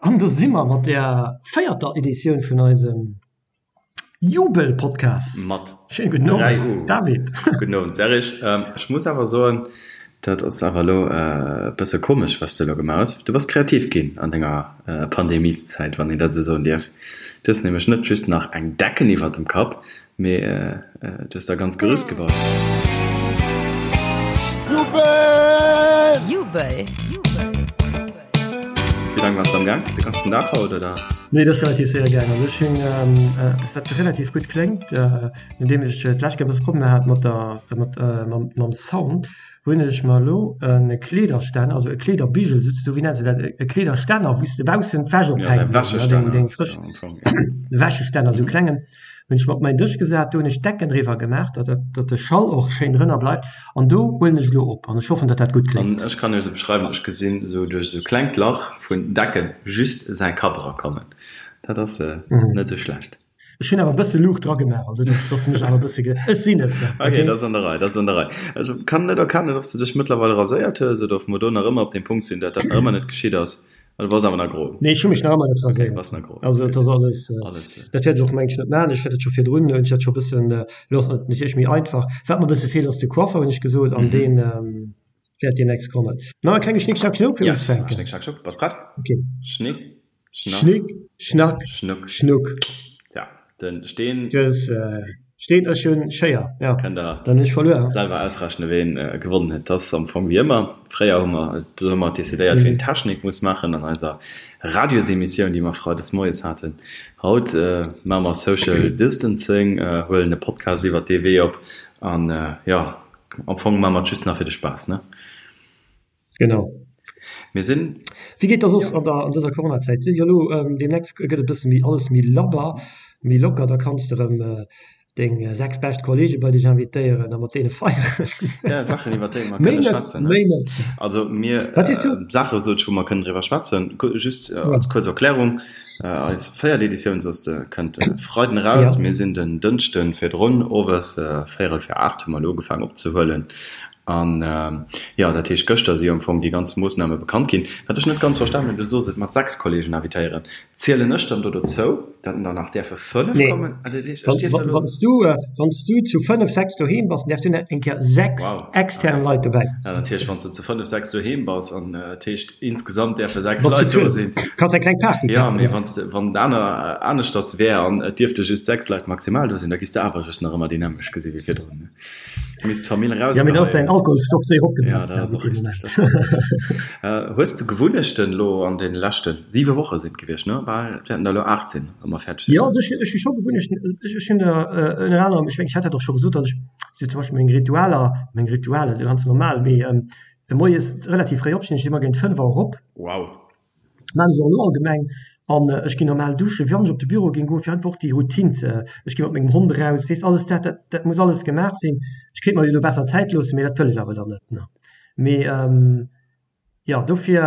An do si mer mat der véierter Editioun vun eisem Jubel-Podcast. Mat Schéine gudden 3 Owend, U. David. Gudden Owend, Serge. Ech muss awer soen, dat ass awer elo e bësse komesch, wat s de elo gemaach hues. Du bass kreativ ginn an denger Pandemieszäit, wann een dat esou soen dierf. Du hues nämlech net just nach eng Decken iwwert dem Kapp, Mee du hues der ganz Gerüst gebaut. Jubel! Jubel! Wéi laang waars de am Gaang? De ganzen Dag haut oder? Nee, dat ass relativ séier gaang. Also ech hunn eppes wat relativ gutt kléngt, nodeem ech d'lescht Kéier e bësse Problemer hat mat der mat mam Sound, hunn ech mer elo e Kleederstänner, also e Kleederbigel souzesoen, wéi nenns de dat, e Kleederstänner, wou s de baussen d'Wäsch ophänks, deng frësch Wäschestänner, esou e klengen. Hunn ech mer op mäin Dësch gesat, do hunn ech d'Decken driwwer gemaach, datt datt de Schall och schéin drënner bleift an do huelen ech elo op an ech hoffen, datt dat gutt An kléngt. ech kann iech se beschreiwen, ech gesinn esou duerch esou klengt Lach vun Decken just säi Kapp erakommen. Dat ass net esou schlecht. Ech hunn awer e bësse Luucht dra gemaach, also datt datt mech awer e bësse ge, ech sinn et, Ok, ok. dat ass an der Rei, dat ass an der Rei. Ech kann net erkennen, ob s de dech mëttlerweil raséiert hues oder ob mer do nach ëmmer op deem Punkt sinn, datt dat nach ëmmer net geschitt ass. Ah, du bass awer nach gro. Nee, ech hu mech nach ëmmer net Okay, raséiert. bass nach gro. Also et ass alles, Alles. dat wäert ech och mengen ech net maachen. Ech hat et scho virdrun, hunn ech dat scho e bëssen, elo ass et natierlech méi einfach. Wat mer e bësse feelt ass de Coiffer, hunn ech gesot, an deen wäert deemnächst kommen. Nach e klenge Schnick Schnack Schnuck fir Yes, unzefänken. Schnick Schnack Schnuck, bass prett? Okay. Schnick Schnack Schnick Schnack Schnuck. Schnuck. Tja, den Steen. Du hues Steen, ech hunn Schéier, jo. Kënnt der Dann hunn ech verluer. selwer ausrechnen, ween gewonnen huet. Dat ass am Fong wéi ëmmer. Fréier hu mer do hu mer decidéiert, ween d'Technik muss maachen an eiser Radiosemissioun, déi mer freides moies haten. Haut maache mer Social Distancing, huelen e Podcast iwwert dee Wee op an, jo, am Fong maache mer et just nach fir de Spaass, ne? Genau. Mir sinn. Wéi geet da soss an der an dëser Coronazäit? Si jo elo deemnächst gëtt et e bësse méi alles méi labber, méi locker, da kanns de erëm deng 6 bescht Kollege bei dech invitéieren a mat deene feieren. Ja, Saachen iwwer déi mer Méi kënne net, schwätzen, ne? méi net. Also mir Wat sees du? Saache sot ech, wou mer kënnen driwwer schwätzen. Just als kuerz Erklärung, Eis véiert Editioun, soss de, kënnt e Freiden eraus. Ja. Mir sinn den Dënschde virdrun, owes véierel fir 8 hu mer elo ugefaangen opzehuelen. An, jo, dat heescht, gëschter si jo am Fong déi ganz Moossname bekannt ginn. Wat ech net ganz verstanen hunn, du sos et mat 6 Kollegen invitéieren. Zielen ech dann do dozou, datt der nach däerfe 5 Nee. kommen? Ah, dat heescht, ech dierf da elo. Wann s du, wann s du zu 5, 6 doheem bass, dann däerfs du nach eng Kéier 6 Wow, extern okay. Leit dobäi. Ja, natierlech, wann s du zu 5, 6 doheem bass an dat heescht, insgesamt däerfe 6 Bass zu Leit do 12. sinn. Kanns eng kleng Party Jo, kafen, mee jo. wann s de, wann et aner, aneschters wär an et dierfte just 6 Leit maximal do sinn, da giss de awer just nach ëmmer déi nämmlecht gesi wéi virdrun, ne? Misst d'Famill Ja, mee da ass däin rausgeheien. Alkoholstock séier Ja, opgebraucht, dat ass David, och dee richteg, dat Moment. stimmt. Hues du Gewunnechten elo an deene leschte siwe Woche sinn et gewiescht, ne? Bal, et wäerten der elo 8 sinn, wa mer fäerdeg sinn. Jo, also ech, ech hu scho Gewunnechten. Ech, ech hunn der ënner anerem, ech mengen, ech hat dat och scho gesot, datt ech sou zum Beispill meng Ritualer, meng Ritualer si ganz normal, mee moies relativ fréi opstinn, ech stinn ëmmer géint 5 Auer op. Wow. Maan ech och elo allgemeng an ech ginn normal duschen, wann ech op de Büro géing goen, fir einfach och déi Routine ze, ech gi mat mengem Hond eraus, weess alles dat, dat dat muss alles gemaach sinn. Ech kéint mer jo do besser Zäit loossen, mee dat wëll ech awer dann net, ne. Mee jo, dofir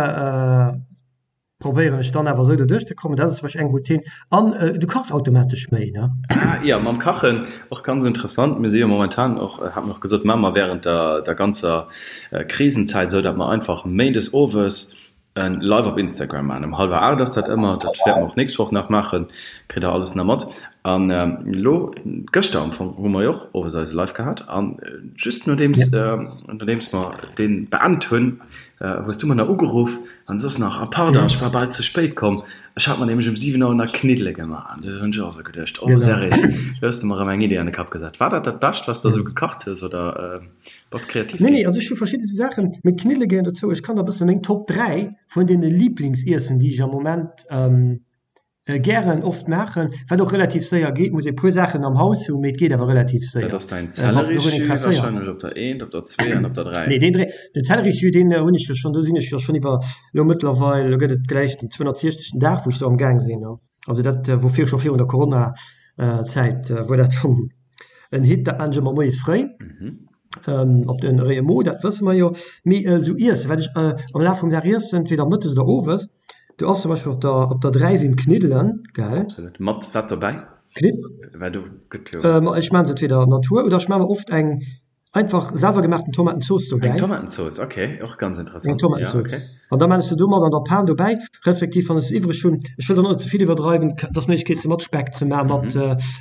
probéieren ech dann awer esou doduerch ze kommen. Dat ass zum Beispill eng Routine an du kachs automatesch méi, ne. Ah jo, mam Kachen och ganz interessant. Mir si jo momentan och, hat mer och gesot, maache mer während der der ganzer Krisenzäit esou, datt mer einfach méindes owes En Live op Instagram maachen. Um hallwer 8 ass dat ëmmer. Dat wäerte mer och nächst Woch nach maachen. Kritt der alles nach mat. An elo, gëschter am Fong, hu mer jo och owes eise Live gehat. An just nodeems, nodeems mer dee beend hunn, hues du mer nach ugeruff an soss nach, Ah pardon, ech war bal ze spéit komm. Ech hat mer nämlech um 7 Auer nach Kniddele gemaach. An du hunn ech och esou geduecht, Oh Serge, do hues de mer erëm eng Idee an de Kapp gesat. War dat dat Bescht, wat s de esou gekacht hues, oder? Bass kreativ Nee, ginn. nee, also ech hu verschidde sou Saachen, mee d'Kniddele gehéieren dozou. Ech kann der e bësse meng Top 3 vun deene Liiblingsiessen, déi ech am Moment gären oft maachen, wat och relativ séier geet, muss ee puer Saachen am Haus hunn, mee et geet awer relativ Dat séier. ass däin Wann s de dorun Zellerisjus interesséiert. warscheinlech op der eent, op der zwee an op der 3. Nee, deen dre, den Zellerisjus, deen hunn ech jo schonn, do sinn ech jo schonn iwwer, elo mëttlerweil, elo gëtt et gläich den 260. Dag, wou ech do am Gaang sinn. Also dat wor vir, scho virun der Corona-Zäit wor dat schonn en Hit. Dat maan ech ëmmer moies fréi op den réie Mo, dat wësse mer jo. Mee esou iessen, wat ech am Laf vum Dag iessen, entweder mëttes oder owes, do ass zum Beispill op der op der 3 sinn d'Kniddelen, gell? Absolut. Mat wat dobäi? Knidd. Well do gëtt jo. Ech maan se entweder Natur oder ech maan mer oft eng. Einfach selwer gemaachten Tomatenzooss dobäi. Eng Tomatenzooss, ok, och ganz interessant. Eng Tomatenzooss. Ja, ok. An da maan ech se do mat an der Pan dobäi, respektiv wann ech se iwwreg hunn, ech wëll dann och net ze vill iwwerdreiwen, et ass Méiglechkeet se mat Speck ze maan, mat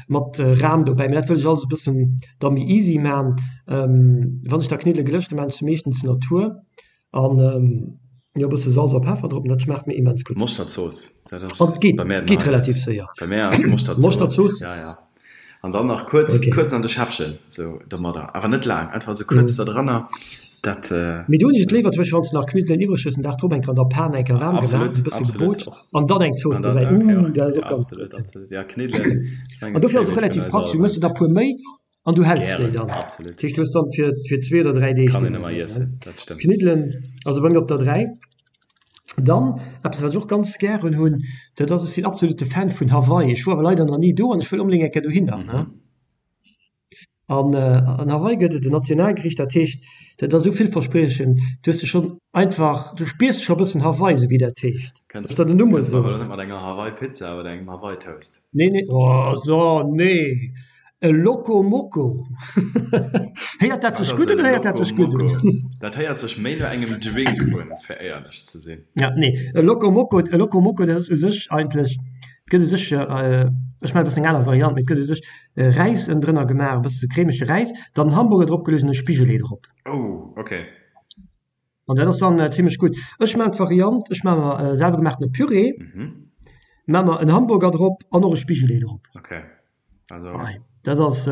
mat Ram dobäi, mee dat wëll ech alles e bëssen da méi easy maan. Wann ech da Kniddele gelëscht hunn, maan ech se meeschtens Natur an jo e bësse Salz a Peffer drop an dat schmaacht mir immens gutt. Moschterzooss, dat ass An et geet, bei mär den geet Highlight. relativ séier. Bei mär ass Moschterzooss, Moschterzooss? ja ja. An dann nach kuerz, Okay. kuerz an de Schäffchen, sou domadder, awer net laang, einfach sou kuerz Mhm. da dranner, dat. Mee do hunn ech et léiwer, zum Beispill wann s de nach Kniddelen iwwreg hues, den Dag drop eng Kéier an der Pan eng Kéier waarm gemaach, Absolut, e bësse absolut, gebootscht och. an dann eng Zooss An dann, dobäi. okay, Ooh, och, dat ass ja, och ganz absolut, gutt. absolut, ja, Kniddelen, ech An mengen, dofir ass et och Favorite vun relativ eis praktesch, du all. méchs der der puer méi an du häls déi Gären, dann. absolut. Dat heescht, du hues dann fir, fir zwee oder dräi Deeg Kann déi een ëmmer dann, iessen, ne? dat stëmmt. Kniddelen, also bei mir op der 3. Dann eppes wat ech och ganz gären hunn, dat ass, ech sinn absolute Fan vun Hawaii. Ech wor awer leider nach ni do an ech wëll onbedéngt eng Kéier dohinner, ne? Mhm. An an Hawaii gëtt et en Nationalgericht, dat heescht, dat ass esou villverspriechend, du hues de schonn einfach, du spiers scho e bëssen Hawaii, esou wéi dat heescht. Kënns Ass dat en Numm kënns mer esou? awer net mat enger Hawaii-Pizza oder engem Hawaii-Toast? Nee, nee, oh so, nee, e Loco Moco. Héiert dat Wat sech ass gutt e un oder héiert dat Loco sech gutt un? Moco? Dat héiert sech méi no engem Drink un, fir éierlech ze sinn. Ja, nee, e Loco Moco, e Loco Moco, dat ass u sech eigentlech, et gëtt u sech, ech maachen e bëssen eng aner Variant, mee et gëtt u sech Räis ënnendrënner gemaach, e bësse cremege Räis, dann Hamburger drop geluecht an e Spigelee drop. Oh, ok. An dat ass dann zimlech gutt. Ech maachen d'Variant, ech maache mer selwer gemaachtene Püree, maache mer en Hamburger drop an och e Spigelee drop. Ok, also. Hei, dat ass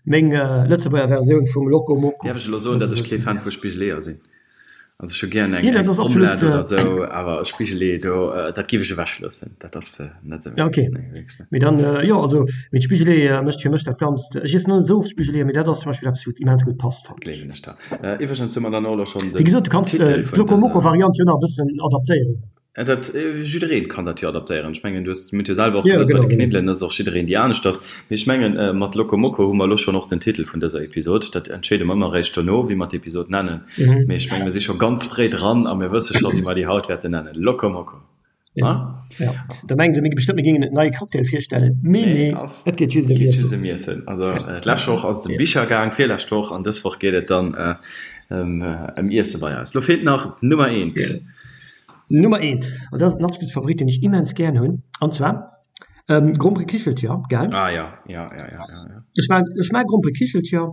meng Lëtzebuerger Versioun vum Loco Moco. Däerf ech elo soen, datt ech kee Fan vu Spigeleeër sinn? Also ech hu gären eng Omelette oder esou, awer e Spigelee do, dat giff ech ewech loossen. Dat ass net esou mäins. Ok, mee dann, jo also, mee d'Spigeleeë mécht fir mech dat Ganzt. Ech iessen och net esou oft Spigeleeë, mee dat ass zum Beispill eppes wat immens gutt passt, fannen ech. Gleewen ech der. Iwwregens hu mer dann och elo schonn den Wéi gesot, du kanns Titel vun d'Loco Moco dëser. Variant jo nach e bëssen adaptéieren. Dat, jiddereen kann dat jo adaptéieren. Ech mengen, du hues, mir hunn jo selwer och Ja, gesot, bei genau, de genau. Kniddelen ass och jiddereen déi aneschters. Mee ech mengen, mat Loco Moco hu mer elo schonn och den Titel vun dëser Episod. Dat entscheede mer ëmmer eréischt dono, wéi mer d'Episod nennen. Mhm. Mee ech mengen, mir si scho ganz fréi dran a mir wësse scho, wéi mer déi haut wäerten nennen, Loco Moco. Ja, Ha? ja. Da mengen se mir bestëmmt, mir géingen en neie Cocktail virstellen. Mee Nee, nee, ass, et geet just ëm geet just Iessen. ëm Iessen. Also, d'lescht Woch ass et ëm Ja. Bicher gaang, d'virlescht Woch an dës Woch geet et dann ëm, ëm Iesse bei eis. Lo feelt nach d'Nummer eent. Ja. Nummer eent, an dat ass den absolute Favorit, deen ech immens gären hunn, an zwar Gromperekichelcher, gell? Ah ja, ja, ja, ja, ja, ja. Ech maan, ech maan Gromperekichelcher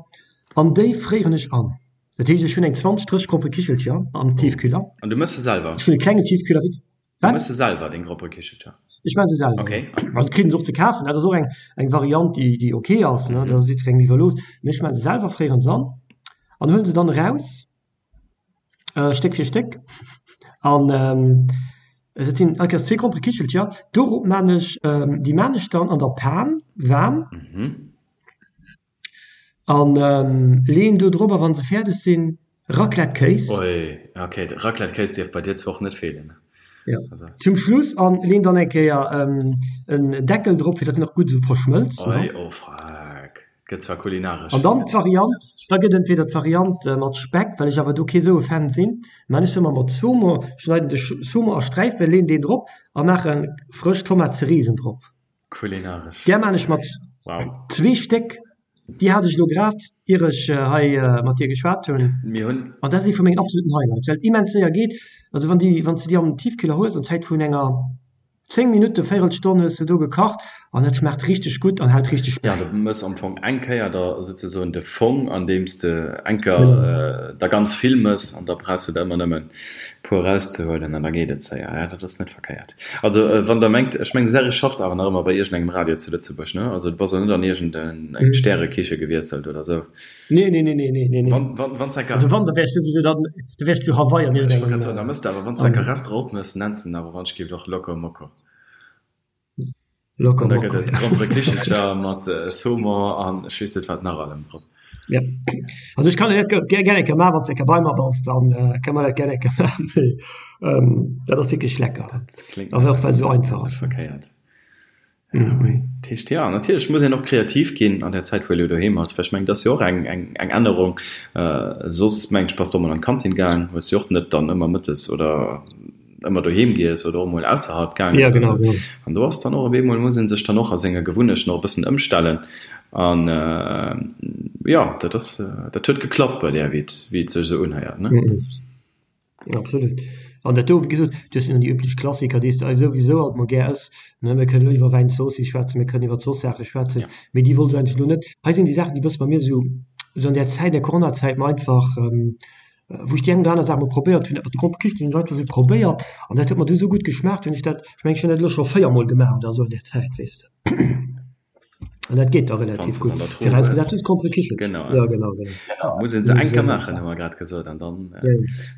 an déi fréieren ech an. Dat heescht, ech hunn eng 20, 30 Gromperekichelcher am Tiefkühler. An du mëss se selwer? Ech hunn e klengen Tiefkühler. Du Wat? mëss se selwer, deng Gromperekichelcher? Ech maan se selwer, Okay. ja. Also, kritt een se och ze kafen, dat ass och eng, eng Variant, déi, déi ok ass, ne, dat ass jiddwerengem iwwerlooss. Mee ech maan se selwer, fréieren se an an huelen se dann eraus. Stéck fir Stéck an dat sinn all Kéiers zwee Gromperekichelcher. Dorop maan ech, déi maan ech dann an der Pan waarm an leeën do drop a wann se fäerdeg sinn Raclette-Kéis. Oi, ok, de Raclette-Kéis dierf bei dir zwar och net feelen. Jo, zum Schluss an leen dann eng Kéier en Deckel drop fir datt en och gutt esou verschmëlzt. Oi, oh freck. Gëtt zwar kulinaresch. An dann d'Variant, da gëtt entweder d'Variant mat Speck, well ech awer do kee sou e Fan sinn, maan ech se ëmmer mat Saumon, schneiden de Saumon a Sträifen, leen deen drop a maache frësch Tomate Cerisen drop. Kulinaresch. Där maan ech mat zwee Stéck, déi hat ech elo grad ier ech hei mat dir geschwat hunn, Mir hunn. an dat ass ee vu mengen absoluten Highlights, well et immens séier geet. Also wann déi, wann s de déi am Tiefkühler hues an Zäit vun enger 10 Minutten, Véirelstonn hues de do gekacht an et schmaacht richteg gutt an hält richteg Ja, bäi. du mëss am Fong eng Kéier da souzesoen de Fong, andeems de eng Kéier Genau. der ganz vill mëss an da brauchs de der ëmmer nëmmen puer erauszehuelen an da geet et séier. Ja, dat ass net verkéiert. Also wann der mengt, ech mengen de Serge schafft awer nach ëmmer bei iergendengem Radio zu Lëtzebuerg, ne? Also du bass och net an iergend eng Stärekiche gewiesselt oder sou? Nee, nee, nee, nee, nee, nee, nee. Wann, wann, wann s enker. Also wann, da wär ech souwisou dann, da wär ech zu Hawaii an Ech wollt iergendengem. grad soen, da mëss de awer, wann s enker Restaurant opmëss, nenns de en awer wann ech giff och Loco Moco. Loco An da Moco, gëtt et ja. Gromperekichelcher mat Saumon an ech weess net wat nach allem drop. Ja. Also ech kann dat gär gär eng Kéier maachen, wann s de eng Kéier bei mer bass, dann kënne mer dat gär eng Kéier maachen. Mee dat ass wierklech lecker. Dat kléngt Awer och well et esou einfach net ass. verkéiert. Dat heescht, jo, natierlech muss een och kreativ ginn an där Zäit, wou ee elo doheem ass, well ech mengen, dat ass jo och eng, eng, eng Ännerung. Soss, mengen ech, bass de och mol an d'Kantin gaang, hues jo och net dann ëmmer mëttes oder. Ëmmer doheem giess oder och mol ausserhalb gaangen ja, genau, genau. An do ass dann och op eemol muss ee sech dann och a senge Gewunnechten och e bëssen ëmstellen an jo dat ass dat huet geklappt bei där wéi et wéi et sech esou unhéiert ne. Mm absolut. An dat do wéi gesot dat sinn déi üblech Klassiker déi s de souwisou alt mol gär ëss ne. Mir kënnen elo iwwer Wäinzooss schwätzen, mir kënnen iwwer soss Saache schwätzen, ja. mee déi wollt ech eigentlech elo net. Hei sinn déi Saachen déi bësse bei mir esou esou an där Zäit, der Coronazäit mer einfach wou ech déi eng oder aner Saach mol probéiert hunn, dat mat de Gromperekichelchen hunn ech einfach esou probéiert an dat huet mer du esou gutt geschmaacht, hunn ech dat, ech mengen ech hunn dat elo scho 4 mol gemaach oder esou an där Zäit, weess de. An dat geet da relativ gutt, virausgesat du hues Gromperekichelchen. Genau, ja genau, genau. Muss een se eng Kéier maachen, hu mer grad gesot, an dann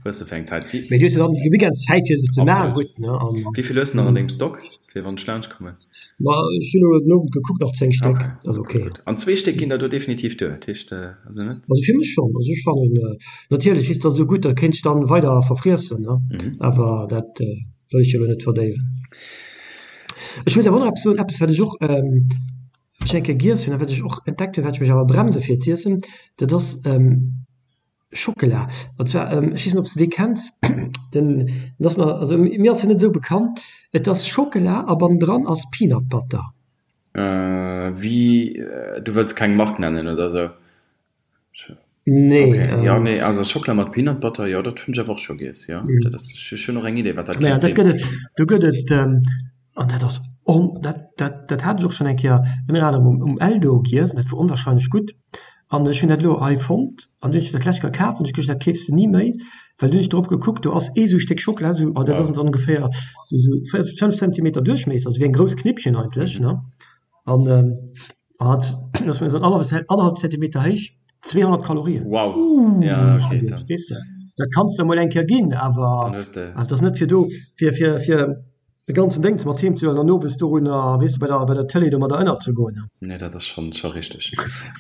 hues de fir eng Zäit. Mee du hues jo dann de Weekend Zäit fir se ze maachen, gutt, ne? Wéi vill hues de nach an dengem Stock, fir wann ech laanscht kommen? Ma ech hunn elo den Owend gekuckt, nach 10 Stéck, Okay, ass okay, okay. gutt. An zwee Stéck ginn der do definitiv duer, dat heescht, also net? Also fir mech schonn, also ech fannen, natierlech is dat esou gutt, da kéint ech dann weider verfriessen, ne, awer dat wëll ech jo elo net verdéiwen. Ech muss awer och nach eppes soen, eppes wat ech och ech eng Kéier giess hunn a wat ech och entdeckt hunn, wat ech mech awer bremse fir z'iessen, dat ass Schockela. An zwar, ech weess net, ob s de dee kenns, den, den ass mer, also mir ass en net esou bekannt. Et ass Schockela a bannendran ass Peanut Butter. Wéi, du wëlls keng Mark nennen oder esou? Nee. Okay, jo, nee, also Schockela mat Peanut Butter, jo, dat hunn ech awer och scho giess, jo. Dat ass, ech hunn och eng Idee, wat dat Naja, kéint dat sinn. gëtt et, do gëtt et, an dat ass on, dat, dat, dat hat ech och schonn eng Kéier ënner anerem um, um Eldo giess an dat wor onwahrscheinlech gutt. An ech hunn dat elo hei fonnt an dunn hunn ech dat lech kaf an ech geduecht, dat keefs de ni méi, well dunn hunn ech drop gekuckt, do ass ee sou Stéck Schockela, sou, oh dat ass dann ongeféier sou sou 5 Zentimeter Duerchmiesser, also wéi eng grouss Knippchen eigentlech, ne? An hat, ass mir esou annerhallef Zentimeter héich, 200 Kalorien. Wow, Uuh, ja hunn ech okay, geduecht, dann weess de, dat kanns de emol eng Kéier ginn, awer dann hues de. dat ass net fir do, fir fir fir e ganzen Déngs mat heem ze huelen an owes dorunner, weess de, bei der, bei der Tëlee domadder ënnerzegoen. Nee, dat ass schonn, scho richteg.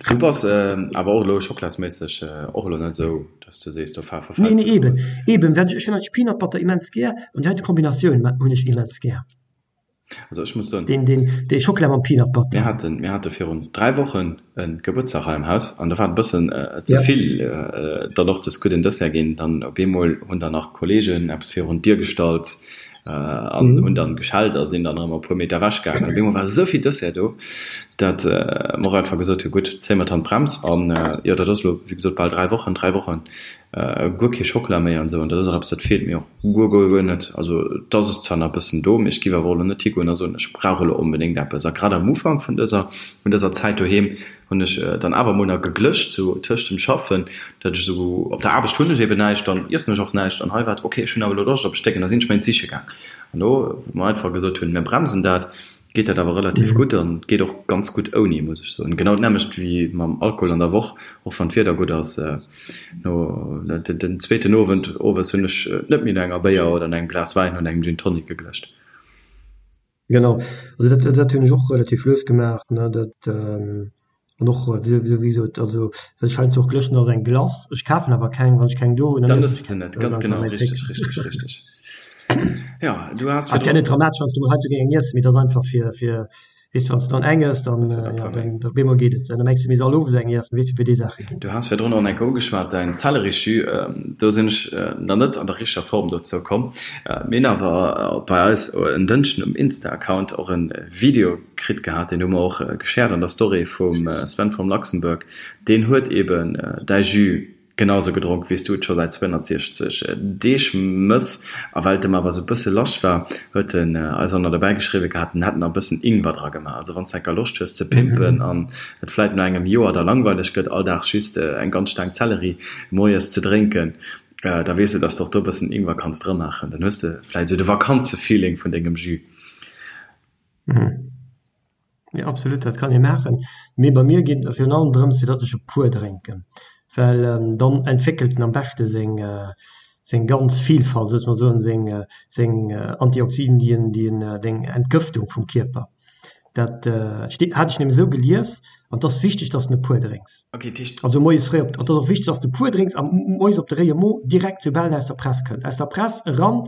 Du bass awer och elo schocklasméisseg och elo net esou, dass du sees, do Nee, verfäls nee, de eben, eben, well ech, ech hunn eigentlech Peanut Butter immens gär an déi heite Kombinatioun hunn ech immens gär. Also ech muss soen. Deen, deen, dee Schockela mam Peanut Butter. Mir haten, mir hate virun 3 Wochen e Gebuertsdag hei am Haus an do war et e bëssen ze vill dann och des gudden Dessert ginn. Dann op eemol hunn dann nach Kollegen eppes virun d'Dier gestallt an hunn dann geschellt a sinn dann erëm e puer Meter ewech gaangen. An op eemol war esou vill Dessert do, dat mer och einfach gesot hu gutt, zéie mer d'Handbrems. An jo, dat ass elo wéi gesot bal 3 Wochen, 3 Wochen guer kee Schockela méi an esou. An dat ass och eppes, dat feelt mir och guer, guer, guer net. Also et ass es zwar nach e bëssen do, mee ech géif awer och elo net higoen a soen, ech brauch elo onbedéngt eppes. A grad am Ufank vun dëser, vun dëser Zäit doheem hunn ech dann awer mol nach geglëscht, sou tëscht dem Schaffen, datt ech esou, op der Aarbecht hunn ech eben näischt, dann iessen ech och näischt an hei war et, ok, ech hunn awer elo Loscht op e Stéck an da sinn ech méi siche gaang. An do, wou mer einfach gesot hunn, mir bremsen dat, geet dat awer relativ gutt an geet och ganz gutt ouni, muss ech soen. Genau d'nämmlecht wéi mam Alkohol an der Woch, och wann d'Wieder gutt ass, no den zweeten Owend owes hunn ech net méi no enger Béier oder no engem Glas Wäin oder engem Gin Tonic geglëscht. Genau, also dat, dat hunn ech och relativ lues gemaach, ne, dat an och wéi wéi gesot, also wat ech heiansdo och glëschen ass eng Glace. Ech kafen awer keng, wann ech keng do hunn, dann Dann iessen ëss ech de keng. net, Dat ass ganz einfach genau, mäin Trick. richteg, richteg, richteg. Jo, du has Ass ja net virdrun. dramatesch, wann s du mol heiansdo géing eng iessen, mee et ass einfach fir, fir Weess de, wann s de dann eng ëss, dann, Hues de der e ja, puer méi. dann op eemol geet et. Dann mengs de, mir soll owes eng iessen, weess de, wéi déi Saache ginn. Du has virdrun och enk ugeschwat, däin Zellerisjus. Do sinn ech nach net an der richteger Form dozou komm. Mir hunn awer bei eis en Dënschden um Insta-Account och e Video kritt gehat, deen hu mer och geshared an der Story vum Sven from Luxembourg. Deen huet eben däi Jus Genau sou gedronk wéi s du et scho säit 260 Deeg mëss. A well et em awer sou bësse lasch war, huet en eis och nach dobäi geschriwwe gehat, en hätt nach e bëssen Ingwer dra gemaach. Also wann s enker Loscht hues ze pimpen an et vläit no engem Joer da langweileg gëtt, all Dag just eng ganz Staang Zelleri moies ze drénken, da weess de, dass de och do e bëssen Ingwer kanns dramaachen. Dann hues de vläit sou de Vakanzefeeling vun dengem Jus. Jo absolut, dat kann ee maachen. Mee bei mir geet et virun allem drëms fir datt ech e puer drénken, well dann entwéckelt en am beschte seng seng ganz Vielfalt, soss mer soen seng seng Antioxiden déi en déi en deng Entgëftung vum Kierper. Dat steet hat ech nämlech esou gelies an et ass wichteg datt s de e puer drénks. Okay, dat heescht. Also moies fréi op, et ass och wichteg datt s de e puer drénks a moies op de réie Mo direkt soubal en aus der Press kënnt, aus der Press eran.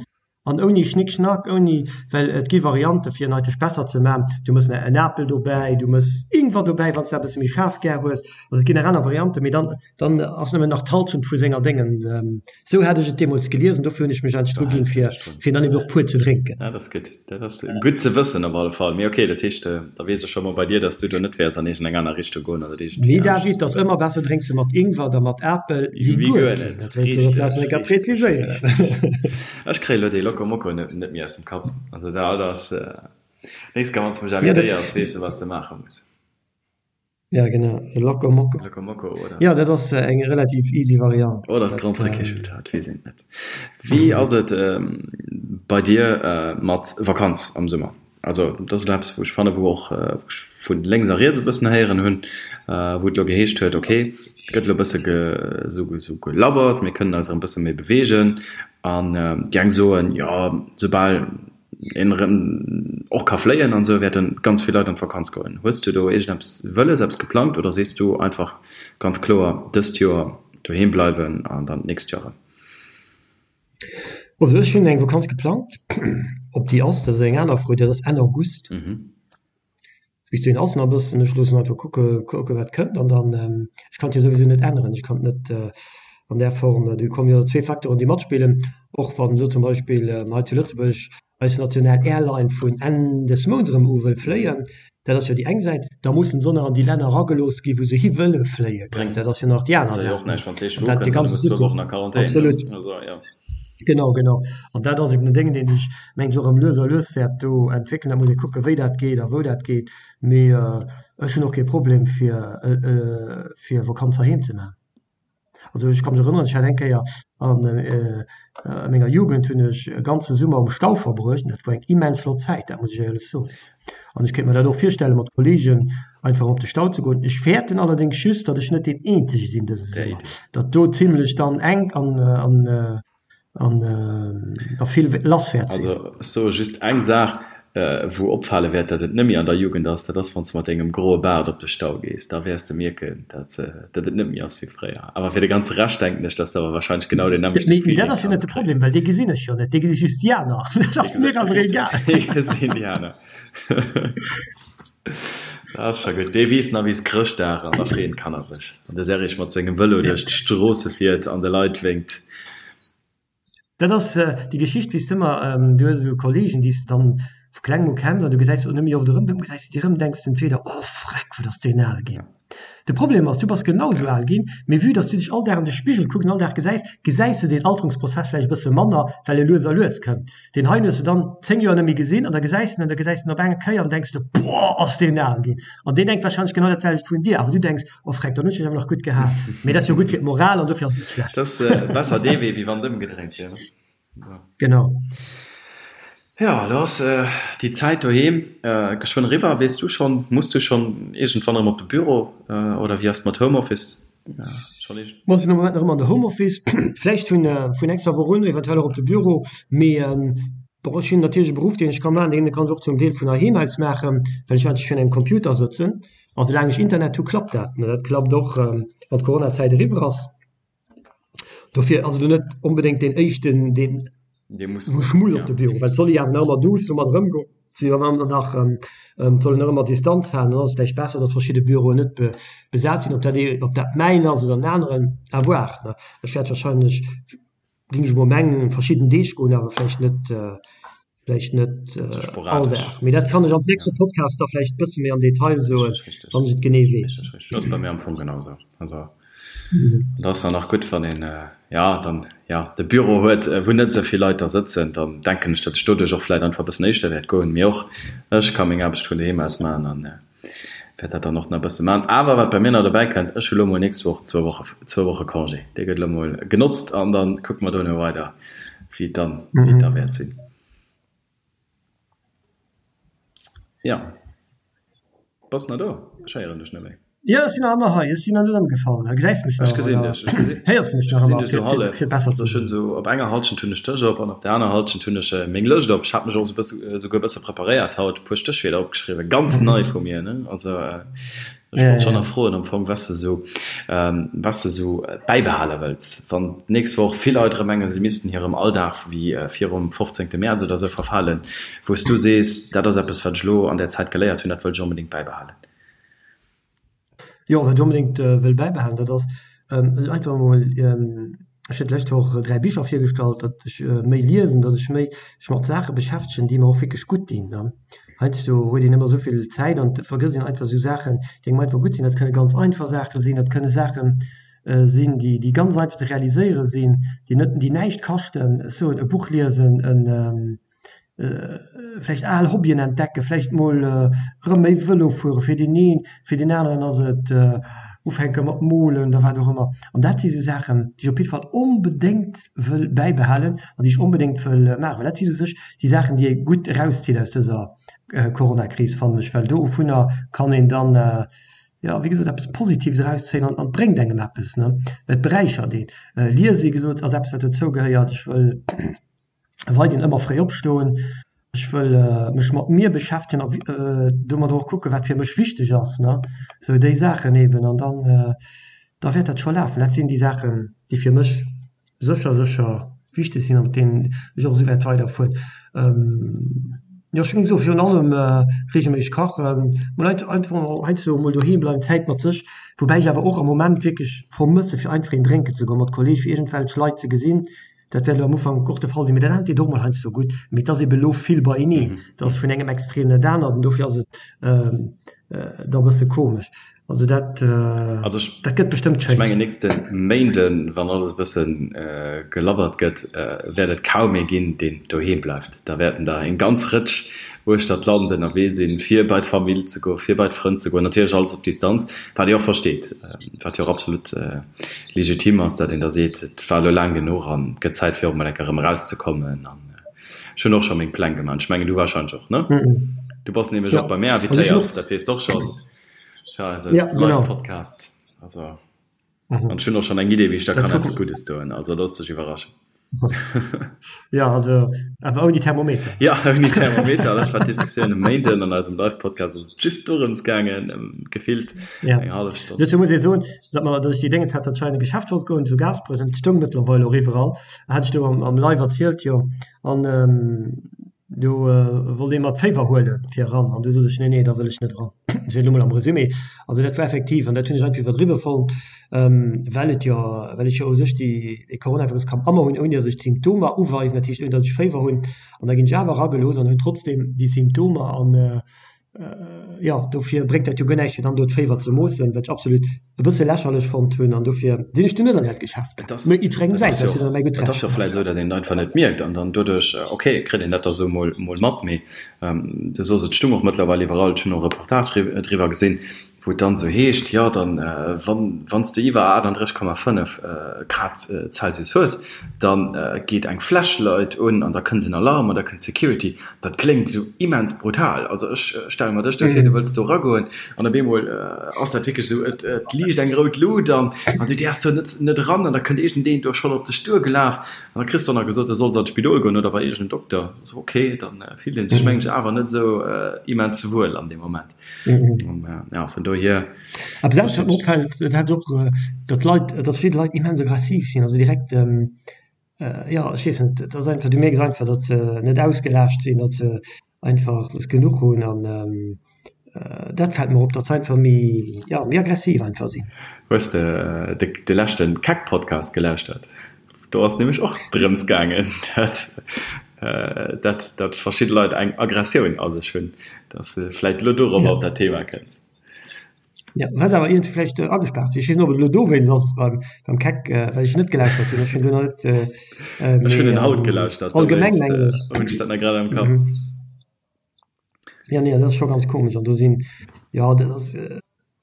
An ouni Schnick-Schnack, ouni, well et gi Variante fir en eigentlech besser ze man, du mëss en Apel dobäi, du mëss Ingwer dobäi, wann s de eppes méi schaarf gär hues. Also et ginn nach aner Varianten, mee dann, dann ass nëmmen nach d'Halschent vu senger Déngen. Esou hat ech et deemools gelies an dofir hunn ech mech eigentlech dru ginn, fir, fir dann eben och pur ze drénken. Dat ass gutt, dat ass gutt ze wëssen op alle Fall. Mee okay, dat heescht, da weess ech scho mol bei dir, dass du do net wäers an iergendeng aner Richtung goen oder iergendwéi Nee David, ass ëmmer besser drénks de mat Ingwer da mat Apel wéi guer net. Dat wollt ech och nach eng Kéier präziséieren. Ech kréie lo dee Loco Moco net net méi aus dem Kapp. Also dat ass, nächst Kéier wann s de mech invitéiers, weess de wat s de maache muss. Ja genau, e Loco Moco. Loco Moco oder? Jo, dat ass eng relativ easy Variant. Oder dat Grand Prix dat weess een net. Wéi ass et bei dir mat Vakanz am Summer? Also dat ass elo eppes wou ech fannen, wou och wou ech vu lénks a riets e bëssen héieren hunn, wou et elo geheescht huet, okay, et gëtt elo e bësse esou esou gelabbert, mir kënnen eis erëm e bësse méi beweegen an déi eng soen, jo soubal een erëm och ka fléien an esou wäerte ganz vill Leit an d'Vakanz goen. Hues du do iergendeppes wëlles, eppes geplangt oder sees du einfach ganz kloer dëst Joer doheem bleiwen an dann d'nächst Joer erëm? Also ech hunn eng Vakanz geplangt. Ob déi ass, dat ass eng aner Fro, dat ass Enn August. Bis dohin ass nach e bëssen. Ech loossen einfach kucke kucke wat kënnt an dann, ech kann et jo souwisou net änneren. Ech kann et net an där Form, do kommen jo zwee Facteuren déi matspillen, och wann elo zum Beispill hei zu Lëtzebuerg eis national Airline vun Enn des Mounts erëm u wëll fléien, dat ass jo déi eng Säit, da mussen se och nach an déi Länner eragelooss ginn, wou se hi wëlle fléien, dat ass jo nach déi aner Säit. An dat de ganze System, absolut, genau, genau. An dat ass eben en Déng, dee sech, mengen ech, och erëm lues a lues wäert do entwéckelen. Da muss ee kucken, wéi dat geet a wou dat geet. Mee ech hunn och kee Problem, fir, fir Vakanz heiheem ze maachen. Also ech ka mech erënneren, ech hat eng Kéier a menger Jugend hunn ech e ganze Summer um Stau verbruecht an dat war eng immens flott Zäit, dat muss ech éierlech soen. An ech kéint mer dat och virstelle mat Kolleegen einfach op de Stau ze goen. Ech fäerten allerdéngs just, datt ech net deen eenzege sinn dëse Summer, datt do zimlech dann enk an an a vill lass wäert sinn. Also ech soe just eng Saach, wou opfale wäert, datt et net méi an der Jugend ass, dat ass wann s de mat dengem groe Baart op de Stau gees, da wäers de mierken, datt datt et net méi ass wéi fréier. Awer fir de ganze Rescht denken ech, datt s de awer wahrscheinlech genau deen nämmlechte Mee dat ass jo net de Problem, well dee gesinn ech jo net, dee gesi just déi aner. Dat ass mir awer egal. Dee gesinn déi aner. Dat ass scho gutt. Dee weess nach wéi s Chrëschtdag an da freeën d'Kanner sech, wann de Serrig mat sengem Vëlo duerch d'Stroosse fiert an de Leit wénkt. Dat ass déi Geschicht, wéi s de ëmmer, du hues esou Kollegen, déi s de dann vu klengem u kenns an du gesäis se och net méi oft erëm, dann gesäis de déi erëm, denks de entweder, oh freck, wat ass deen al ginn. De Problem ass, du bass genau esou al ginn, mee vue dass du dech all Dag an de Spigel kucks an all Dag gesäis, gesäis de deen Alterungsprozess vläicht e bësse manner, well e lues a lues kënnt. Deen heien hues de dann 10 Joer net méi gesinn an da gesäis de en an da gesäis de en op eng Kéier an denks de, boah, ass deen al ginn. An deen denkt wahrscheinlech genau dat selwecht vun dir, awer du denks, oh freck, dann hunn ech mech awer nach gutt gehat. Mee dat ass jo gutt fir d'Moral an dofir ass et net schlecht. Dat ass besser dee Wee, wéi wann et ëmgedréint wier, ne? Genau. Jo, elo ass déi Zäit doheem geschwënn eriwwer. Weess du schonn, muss du schonn iergendwann erëm op de Büro oder wéi ass et mat Homeoffice? Mer sinn am Moment nach ëmmer an der Homeoffice, vläicht vun vun nächster Woch un eventuell och op de Büro, mee bon ech hunn natierlech e Beruff deen ech ka maachen, deen kann ech och zum Deel vun heiheem aus maachen, well ech eigentlech virun engem Computer sëtzen an soulaang ech Internet hu klappt dat. Dat klappt och wann d'Coronazäit eriwwer ass. Dofir ass et elo net onbedéngt deen éischten deen wou ech muss op de Büro, well et soll ee jo awer nach ëmmer duuss domat erëmgoen. Si jo ëmmer nach, et soll een nach ëmmer Distanz halen, dann ass et vläicht besser, datt verschidde Büroen net besat sinn. Ob dat ee, ob dat mäin ass oder en aneren, à voir. Ech wäert wahrscheinlech, géing ech emol mengen, verschidden Deeg goen, awer vläicht net, vläicht net all Dag. Mee dat kann ech am nächste Podcast da vläicht e bësse méi am Detail soen, wann ech et genee weess. Ass bei mir am Fong genau esou. Also Et ass dann nach gutt, wann een, jo, dann, jo, de Büro huet, wou net esou vill Leit da sëtzen. Dann denken ech, datt ech doduerch och vläicht einfach e bëssen éischter wäert goen. Mee och ech ka meng Aarbecht vun doheem aus maachen an wäert dat dann och nach e bësse maachen. Awer wat bei mir nach dobäi kënnt, ech hu lo mol nächst Woch zwou Woche, zwou Woche Congé. Dee gëtt lo mol genotzt an da kucke mer dono weider, wéi et dann, wéi et da wäert sinn. Jo. Bass nach do? Ech héieren dech net méi. Jo, ech sinn nach ëmmer hei. Ech sinn nach net ëmgefall. Gesäis mech nach? Ech gesinn dech. Ech gesinn, Héiers mech nach ech gesinn dech sou hallef. Fir besser ze. Ech hunn sou op enger Halschent hunn ech dech op an op der aner Halschent hunn ech meng Lëscht op. Ech hat mech och sou bësse, souguer e bësse preparéiert haut, e puer Stéchwierder opgeschriwwen. Ganz nei vu mir, ne? Also. Ech wollt schonn nach froen am Fong, was de sou, was de sou bäibehale wëlls, wann d'nächst Woch vill Leit erëm mengen, si missten hirem Alldag wéi virum 15. Mäerz oder sou verfalen, wou s du sees, dat ass eppes, wat ech elo an där Zäit geléiert hunn, dat wëll ech onbedéngt bäibehalen. Jo, wat ech onbedéngt wëll bäibehalen, dat ass einfach emol, ech hunn d'lescht Woch 3 Bicher virgestallt, datt ech méi liesen, datt ech méi mech mat Saache beschäftegen, déi mer och wierklech gutt dinn. Heiansdo huet een ëmmer esou vill Zäit an et vergësst een einfach esou Saachen, déi engem einfach gutt sinn. Dat kënne ganz einfach Saache sinn, dat kënne Saache sinn, déi déi ganz einfach ze realiséiere sinn, déi net, déi näischt kaschten. Ech soen, e Buch liesen, en vläicht al Hobbyen entdecken, vläicht mol erëm méi Vëlo fuere fir deen een, fir deen aneren ass et ufänke mat molen oder wat och ëmmer. An dat si sou Saachen, déi ech op jidde Fall onbedéngt wëll bäibehalen an déi ech onbedéngt wëll maachen, well dat si u sech déi Saachen, déi ee gutt erauszitt aus dëser Coronakris, fannen ech, well dovunner kann een dann, jo, wéi gesot, eppes Positives erauszéien an et bréngt engem eppes, ne, et beräichert een. Liese, wéi gesot, ass eppes, wat dozou gehéiert. Ech wëll weiderhin ëmmer fréi opstoen, ech wëll mech mat mir beschäftegen a domadder och kucken, wat fir mech wichteg ass, ne, sou déi Saachen eben an dann da wäert dat scho lafen. Dat sinn déi Saachen, déi fir mech sécher, sécher wichteg sinn a mat deenen ech och esou wäert weiderfueren. Jo, ech géing soen, virun allem reegelméisseg kachen, mol einfach heiansdo mol doheem bleiwen, Zäit mat sech, woubäi ech awer och am Moment wierklech vermësse fir einfach een drénken ze goen, mat Kolleege fir iergendwelch Leit ze gesinn. Dat wäert elo am Ufank och de Fall sinn, mee dat anert deet och mol heiansdo gutt. Mee et ass ebe lo vill beieneen, et ass vun engem Extrem dat anert an dofir ass et da e bësse komesch. Also dat, dat gëtt bestëmmt schéin. Ech mengen nächste Méinden, wann alles e bësse gelabbert gëtt, wäert et kaum ee ginn, deen doheem bleift. Da wäerten der eng ganz Rëtsch uechter d'Land ënnerwee sinn, fir bei d'Famill ze goen, fir bei d'Frënn ze goen. Natierlech alles op Distanz, wat ee och versteet, wat jo och absolut legitim ass, datt een da seet, et war elo laang genuch an et gëtt Zäit fir och emol eng Kéier erëm erauszekommen. An ech hunn och scho meng Pläng gemaach. Ech mengen du warscheinlech och, ne? Du bass nämlech och bei mär invitéiert, dat weess de och schonn, fir eise Live-Podcast. Also an ech hunn och schonn eng Idee, wéi ech der kann eppes Guddes doen. Also looss dech iwwerraschen. Ja, also awer ouni Thermometer. Ja, ouni Thermometer. Dat war d'Diskussioun e Méinden an eisem Live-Podcast. Ass et just dorëms gaangen, gefillt ja. eng hallef Stonn. Dozou muss ee soen, datt mer, datt ech déi Déngens hat, datt ech hei an e Geschäft wollt goen, zu Gaasperech, an et stoung mëttlerweil och iwwerall, hat ech do am, am Live erzielt, jo. An ähm, do wollt ee mer d'Féiwer huelen fir eran, an du sot ech, nee, nee, da wëll ech net eran. Dat wier elo mol am Resumé. Also dat war effektiv, an dat hunn ech einfach iwwerdriwwe fonnt, well et jo, well ech jo u sech déi, dee Coronavirus kann ëmmer hunn, ouni datt ech d'Symptomer uweisen, dat heescht ouni datt ech Féiwer hunn, an da ginn ech awer eragelooss an hunn trotzdeem déi Symptomer an jo, dofir bréngt dat jo guer näischt fir dann do d'Féiwer ze moossen, wat ech absolut e bësse lächerlech fonnt hunn an dofir sinn ech dunn net an dat Geschäft gaang. Mee jiddwerengem säins, dat ass jo dann mäi gutt Recht. Et ass jo vläicht esou, datt een et einfach net mierkt an dann doduerch, ok, kritt een dat da sou mol mat, mee du soos, et stung och mëttlerweil iwwerall, ech hunn och Reportage driwwer gesinn, wou et dann esou heescht, jo dann wann wann s de iwwer 38,5 Grad Celsius hues, da geet eng Flashlight un an da kënnt en Alarm an da kënnt d'Security. Dat kléngt esou immens brutal. Also ech stelle mer dech do vir, du wëlls do eragoen an op eemol ass dat wierklech esou, et liicht eng rout Lut an an du däerfs do net net eran an da kënnt iergendeen do schonn op dech duergelaf an da kriss de och nach gesot, du solls an d'Spidol goen oder bei iergendeen Dokter. Ok, dann fillt ee sech mengen ech awer net esou immens wuel an deem Moment. Ja, vun dohier. Awer selbst wat mir opfält, dat hat och, datt d'Leit, datt verschidde Leit immens aggressiv sinn, also direkt, jo, ech weess net, et ass einfach, du mierks einfach, datt se net ausgelaascht sinn, datt se einfach, datt se genuch hunn an dat fält mer op, datt se einfach méi, jo, méi aggressiv einfach sinn. Hues de de leschte Keck-Podcast gelauschtert? Do ass nämlech och drëms gaangen, dat, dat, dat verschidde Leit eng Aggressioun a sech hunn, dass de vläit elo dorobber op dat Thema kënns. Ja, well se awer iergendwéi vläicht agespaart sinn. Ech weess net, ob et elo dowéinst ass beim, beim Keck, well ech net gelauschtert hunn. Ech hunn do nach net, Ech hunn en haut gelauschtert, allgemeng mengen ech. Hunn ech dat nach grad am Kapp. Ja, nee, dat ass scho ganz komesch. An do sinn, jo, dat ass,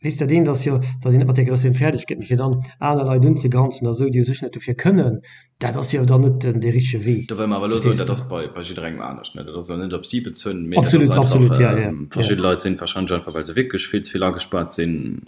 weess dat eent ass jo, datt een net mat där Aggressioun fäerdeg gëtt, mee fir dann aner Leit unzegranzen a sou, déi u sech net dofir kënnen, dat ass jo dann net den dee richtege Wee. Do wëll mer awer elo soen, dat ass bei, bei jidderengem anescht, ne? Dat ass elo net op si bezunn, mee dat ass einfach, absolut, ja, ja, verschidde Leit sinn warscheinlech einfach, well se wierklech vill ze vill agespaart sinn.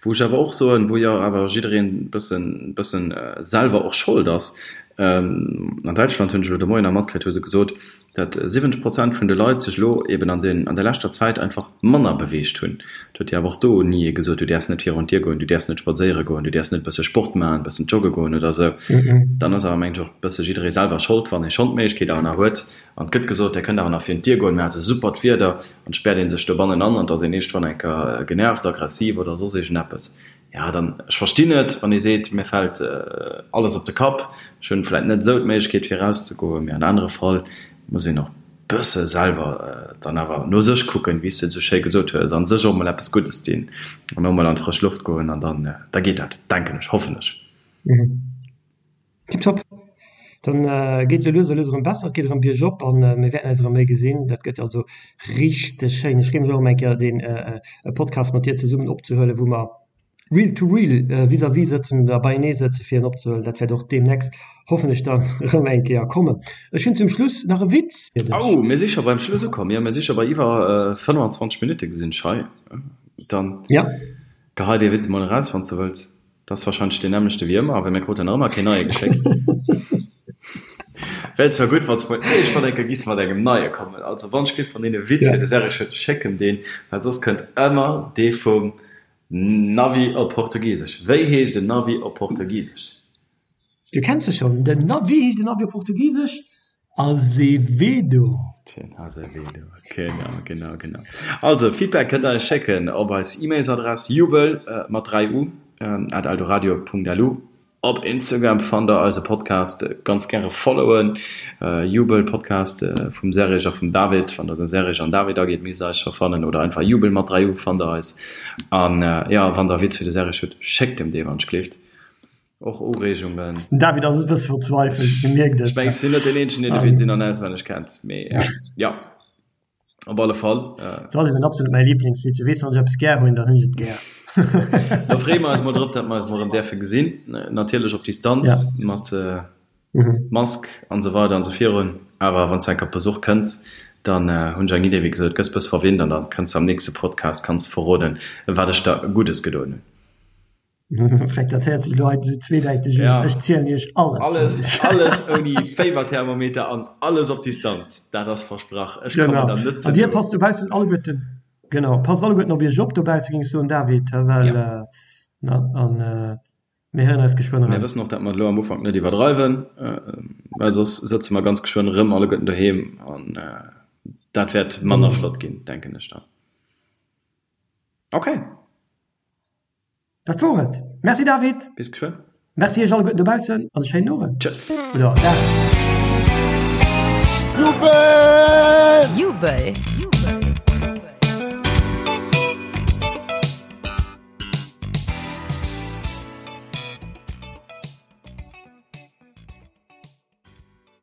Wou ech awer och soen, wou jo awer jiddereen e bëssen, bëssen selwer och Schold ass. An Däitschland hunn ech elo de Moien nach matkritt, hu se gesot, datt 70 Prozent vun de Leit sech elo eben an den, an der leschter Zäit einfach manner beweegt hunn. Et huet jo awer och do ni ee gesot, du däerfs net virun d'Dier goen, du däerfs net spadséiere goen, du däerfs net e bësse Sport maachen, e bëssen jogge goen oder esou. Dann ass awer, mengen ech, och e bësse jidderee selwer Schold, wann ee schonn d'Méiglechkeet awer nach huet an et gëtt gesot, Dir kënnt awer nach virun d'Dier goen, mir hate supert Wieder, an et späert ee sech dobannen an an et ass een iergendwann eng Kéier genervt, aggressiv oder soss iergendeppes. Jo, dann, ech verstinn et, wann ee seet, mir fält alles op de Kapp, ech hunn vläit net esou d'Méiglechkeet fir erauszegoen, mee an anere Fall muss een och bësse selwer dann awer no sech kucken, wéi s de et esou schéi gesot hues, an sech och mol eppes Guddes dinn an och mol an d'frësch Loft goen an dann, da geet dat, denken ech, hoffen ech. Tiptop. Dann geet elo lues a lues erëm besser, et geet erëm biergop an mir wäerten eis erëm méi gesinn. Dat gëtt also richteg schéin. Ech freeë mech och erëm eng Kéier deen Podcast mat dir zesummen opzehuelen, wou mer real to real vis-à-vis sëtzen oder beienee sëtzen fir en opzehuelen. Dat wäert och deemnächst hoffentlech dann erëm eng Kéier kommen. Ech hunn zum Schluss nach e Witz fir dech. Oh, mir si scho beim Schluss ukomm. Jo, mir si scho bei iwwer 25 Minutte gesinn ech hei. Dann gehei dee Witz emol eraus, wann s de wëlls. Dat ass wahrscheinlech deen nämmlechte wéi ëmmer, well mir kruten nach ëmmer keen neie geschéckt. Wär zwar gutt, wann s mol iergendwann eng Kéier giss mat engem neie kommen. Also wann ech giff wann een e Witz fir de Serge huet, schéck em deen, well soss kënnt ëmmer dee vum Navi op Portugisesch. Wéi heescht en Navi op Portugisesch? Du kenns se schonn, den Navi. Wéi heescht en Navi op Portugisesch? Azevedo. Den Azevedo, genau, genau, genau. Also, Feedback kënnt der eis schécken op eis E-Mails-Adress jubel mat 3 u at eldoradio.lu. Op Instagram fannt der eise Podcast, ganz gäre followen, Jubel Podcast vum Serge a vum David. Wann der de Serge an David agitt, misst der eis scho fannen, oder einfach Jubel mat 3 u fannt der eis. An jo, wann der e Witz fir de Serge hutt, schéckt em dee wann ech gleeft. Och Ureegungen. Den David ass e bësse verzweifelt, e mierkt et. Ech mengen, ech sinn net deen eenzegen, deen de Witz in an auswenneg kennt, mee jo, op alle Fall. Dat ass eben absolut mäi Liblingswitz. Du weess, wann ech eppes gär hunn, dann hunn ech et gär. Da freeë mer eis mol drop, datt mer eis mol erëm däerfe gesinn, natierlech op Distanz, mat Mask an esou weider an esou virun. Awer wann s de eng Kéier op Besuch kënns, dann hunn ech eng Idee, wéi gesot, gëss bësse verwinnt an da kënns de am nächste Podcast, kanns verroden, wat ech der Guddes gedoen hunn. Freck, dat héiert sech elo hei esou zweedäiteg un. Ja. Ech zielen iech alles. Alles, alles ouni Féiwerthermometer an alles op Distanz. Dat ass versprach. Ech kommen Genau. dann net ze An dir no. passt dobaussen alleguerten, genau, passt alleguerten op iech op dobausse, géing ech soen, David, well, Ja. äh, na, an äh, mir héieren eis geschwënn Mir erëm. wëssen och, dat mer et elo am Ufank net iwwerdreiwen, äh, well soss sëtze mer ganz geschwënn erëm alleguerten doheem an äh, dat wäert manner Genau. flott ginn, denken ech dann. Okay. Dat wor et. Merci David. Bis geschwënn. Merci iech alleguerten dobaussen an e schéinen Owend. Tschëss. Oder Dag. Jubel! Jubel!